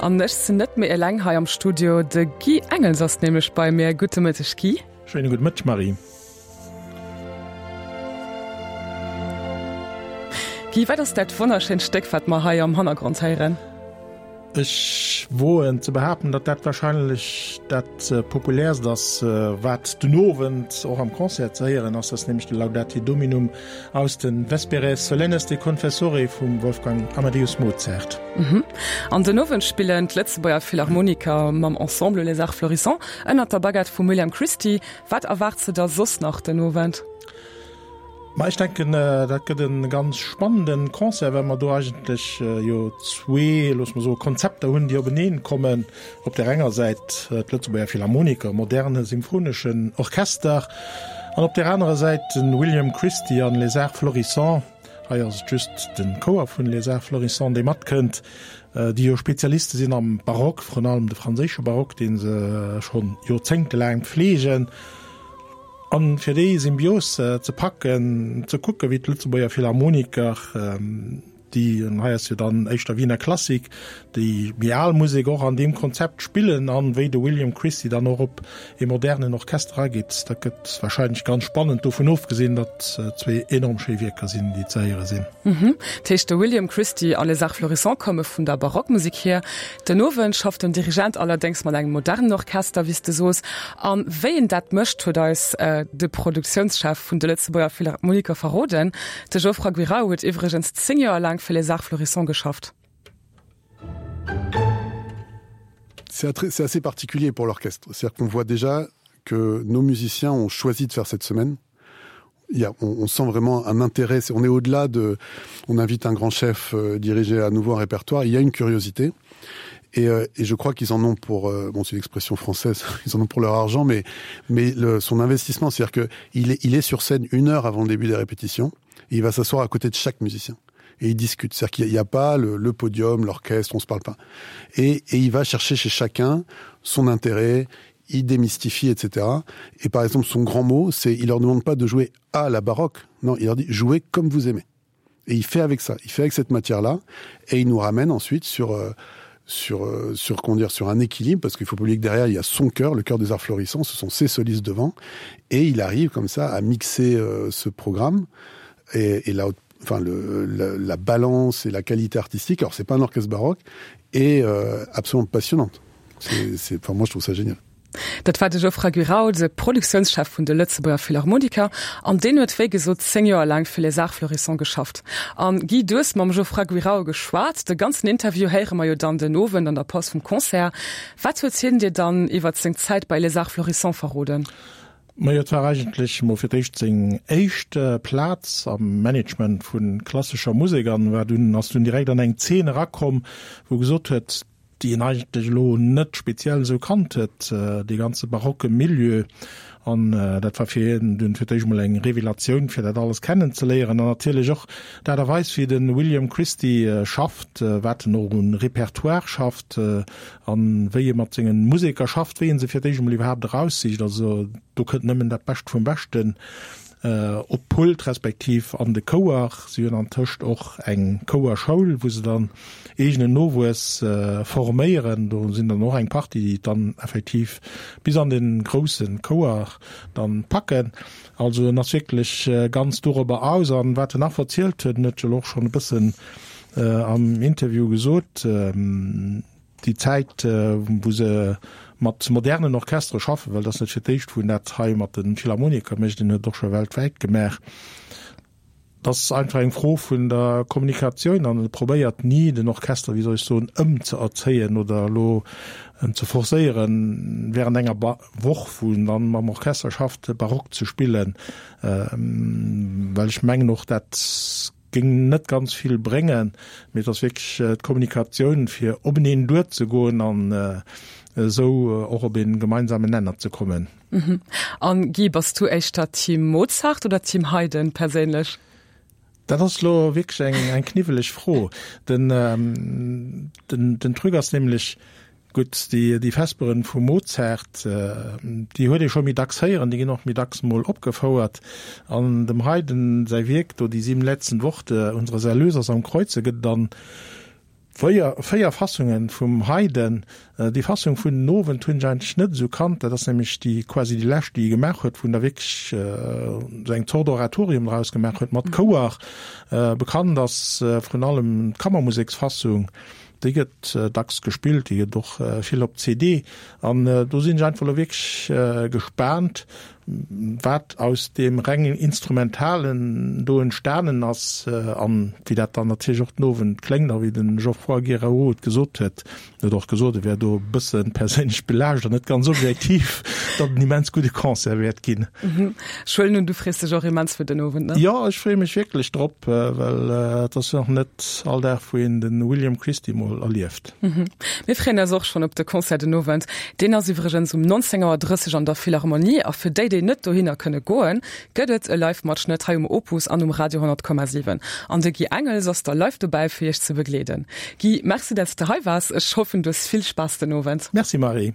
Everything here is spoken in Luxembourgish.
An ech sinn net méi eleng hei am Studio, de Guy Engels ass nämlech bei mir. Gudde Mëtteg Guy. Schéine gudde Mëtteg Marie. Guy, wat ass dat wonnerschéint Stéck wat mer hei am Hannergrond héieren? Ech woen ze behaapten, datt dat warscheinlech dat populäerst ass, wat den Owend och am Concert ze héieren ass. Dat ass nämlech de Laudate Dominum aus de Vesperes Solennes de Confessore vum Wolfgang Amadeus Mozart. An den Owend spillen d'Lëtzebuerger Philharmoniker mam Ensemble Les Arts Florissants ënnert der Baguette vum William Christie. Wat erwaarts de der soss nach den Owend? Ma ech denken, dat gëtt e ganz spannende Concert, well mer do eigentlech jo zwee, loosse mer soen, Konzepter hunn, déi openeen kommen. Op där enger Säit d'Lëtzebuerger Philharmoniker, moderne symphoneschen Orchester, an op där anerer Säit de William Christie an Les Arts Florissants. Hei ass et just de Chouer vun Les Arts Florissants, dee matkënnt, déi jo Spezialiste sinn am Barock, vrun allem de franséische Barock, dee se schonn joerzéngtelaang pfleegen. An fir déi Symbios ze packen, ze kucken, wéi d'Lëtzebuerger Philharmoniker, déi, an hei ass jo dann éischter Wiener Klassik, déi méi al Musek och an deem Konzept spillen an wéi de William Christie dann och op ee modernen Orchester ageet, dat gëtt wahrscheinlech ganz spannend, dovun ofgesinn, datt zwee enorm schéi Wierker sinn, déi ze héiere sinn. Dat heescht, de William Christie a Les Arts Florissants komme vun der Barockmusek hier. Den Owend schafft den Dirigent allerdéngs mat engem modernen Orchester, wéi s de soos. A wéi en dat mécht, huet eis de Produktiounschef vun de Lëtzebuerger Philharmoniker verroden. De Geoffroy Guirao huet iwwregens 10 Joer laang fir Les Arts Florissants geschafft. C'est assez particulier pour l'orchestre. C'est-à-dire qu'on voit déjà que nos musiciens ont choisi de faire cette semaine. Il y a, on, on sent vraiment un intérêt, on est au-delà de on invite un grand chef euh, diriger à nouveau un répertoire, il y a une curiosité et, euh, et je crois qu'ils en ont pour euh, bon c'est l'expression française ils en ont pour leur argent mais mais le, son investissement c'est à dire que il est, il est sur scène une heure avant le début des répétitions et il va s'asseoir à côté de chaque musicien et il discute c'est à dire qu'il n'y a, a pas le, le podium l'orchestre on se parle pas et, et il va chercher chez chacun son intérêt il démystifie etc et par exemple son grand mot c'est il leur demande pas de jouer à la baroque non il leur dit jouez comme vous aimez et il fait avec ça il fait avec cette matière là et il nous ramène ensuite sur euh, sur euh, sur qu'on dire sur un équilibre parce qu'il faut pas oublier que derrière il y a son cœur le cœur des arts florissants ce sont ses solistes devant et il arrive comme ça à mixer euh, ce programme et, et là enfin le la, la balance et la qualité artistique alors c'est pas un orchestre baroque et euh, absolument passionnante c'est enfin moi je trouve ça génial Dat war de Geoffroy Guiraud, de Produktiounschef vun de Lëtzebuerger Philharmoniker, an deen huet wéi gesot 10 Joer laang fir Les Arts Florissants geschafft. An Guy, du hues mam Geoffroy Guirao geschwat. De ganzen Interview héiere mer jo dann den Owend an der Paus vum Concert. Wat huet hien dir dann iwwert seng Zäit bei Les Arts Florissants verroden? Majo, et war eigentlech mol fir d'éischt seng éischt Plaz am Management vu klassescher Musek an war dunn, ass dunn direkt an eng Zeen erakomm, wou e gesot huet, déi en eigentlech elo net speziell esou kannt huet, dee ganze barocke Milieu. An dat war fir hien dunn fir d'éischt emol eng Revelatioun, fir dat alles kennenzeléieren. An natierlech och d'Aart a Weis, wéi de William Christie schafft, wat en och un Repertoire schafft a wéi e mat senge Museker schafft, wéi e se fir d'éischt emol iwwerhaapt eraussicht. Also do kënnt nëmmen dat Bescht vum Beschten Op d'Pult respektiv an de Chouer. Si hunn antëscht och eng Chouerschoul, wou se dann eegenen Nowuess forméieren. Do sinn dann och eng Partie, déi et dann effektiv bis an de grousse Chouer dann packen. Also en ass wierklech ganz dorobber aus. An wat en nach verzielt huet, en huet jo elo och schonn e bëssen am Interview gesot, Déi Zäit, wou se mat modernen Orchestere schaffen, well et ass net fir d'éischt, wou en dat hei mat de Philharmoniker mécht, en huet et och scho weltwäit gemaach, dat ass einfach eng Fro vun der Kommunikatioun an e probéiert ni, den Orchester, wéi soll ech soen, ëmzeerzéien oder elo en ze forcéieren, während enger Woch, wou en dann mam Orchester schafft, Barock ze spillen, well ech mengen och, dat Géing net ganz vill bréngen, mee et ass wierklech d'Kommunikatioun, fir openeen duerzegoen an esou och op ee gemeinsamen Nenner ze kommen. An Guy, bass du éischter Team Mozart oder Team Haydn perséinlech? Dat ass elo wierklech eng kniwweleg Fro. Den Truc ass nämlech, Gutt, déi Vesperen vum Mozart, déi huet ee scho méi dacks héieren, déi ginn och méi dacks mol opgefouert. An dem Haydn säi Wierk do, Die sieben letzten Worte unseres Erlösers am Kreuze, gëtt dann. 4 Fassungen vum Haydn. Déi Fassung vun den Owend hunn ech eigentlech net esou kannt. Dat ass nämlech déi quasi déi lescht, déi e gemaach huet, wou en da wierklech esou eng Zort Oratorium draus gemaach huet mat Chouer. Bekannt ass vrun allem d'Kammermuseksfassung. Déi gëtt dacks gespillt, déi gëtt och vill op CD. An do sinn ech einfach elo wierklech gespaant, wat aus deem rengen Instrumentalen do entstanen ass an wéi dat dann natierlech och den Owend kléngt. A wéi de Geoffroy Guéraud et gesot huet, en huet och gesot, e wär do e bësse perséinlech belaascht an net ganz objektiv, datt et en immens gudde Concert wäert ginn. Ech huelen un, du frees dech och immens fir den Owend, ne? Jo, ech freeë mech wierklech drop, well et ass jo och net all Dag, wou een de William Christie mol erlieft. Mir freeën eis och schonn op de Concert den Owend. Deen ass iwwregens um 19 Auer 30 an der Philharmonie. A fir déi, déi net dohinner kënne goen, gëtt et e Live-Matschnëtt hei um Opus an um Radio 100,7. An de Guy Engels ass da live dobäi, fir iech ze begleeden. Guy, Merci, dat s de hei waars. Ech hoffen, du hues vill Spaass den Owend. Merci, Marie.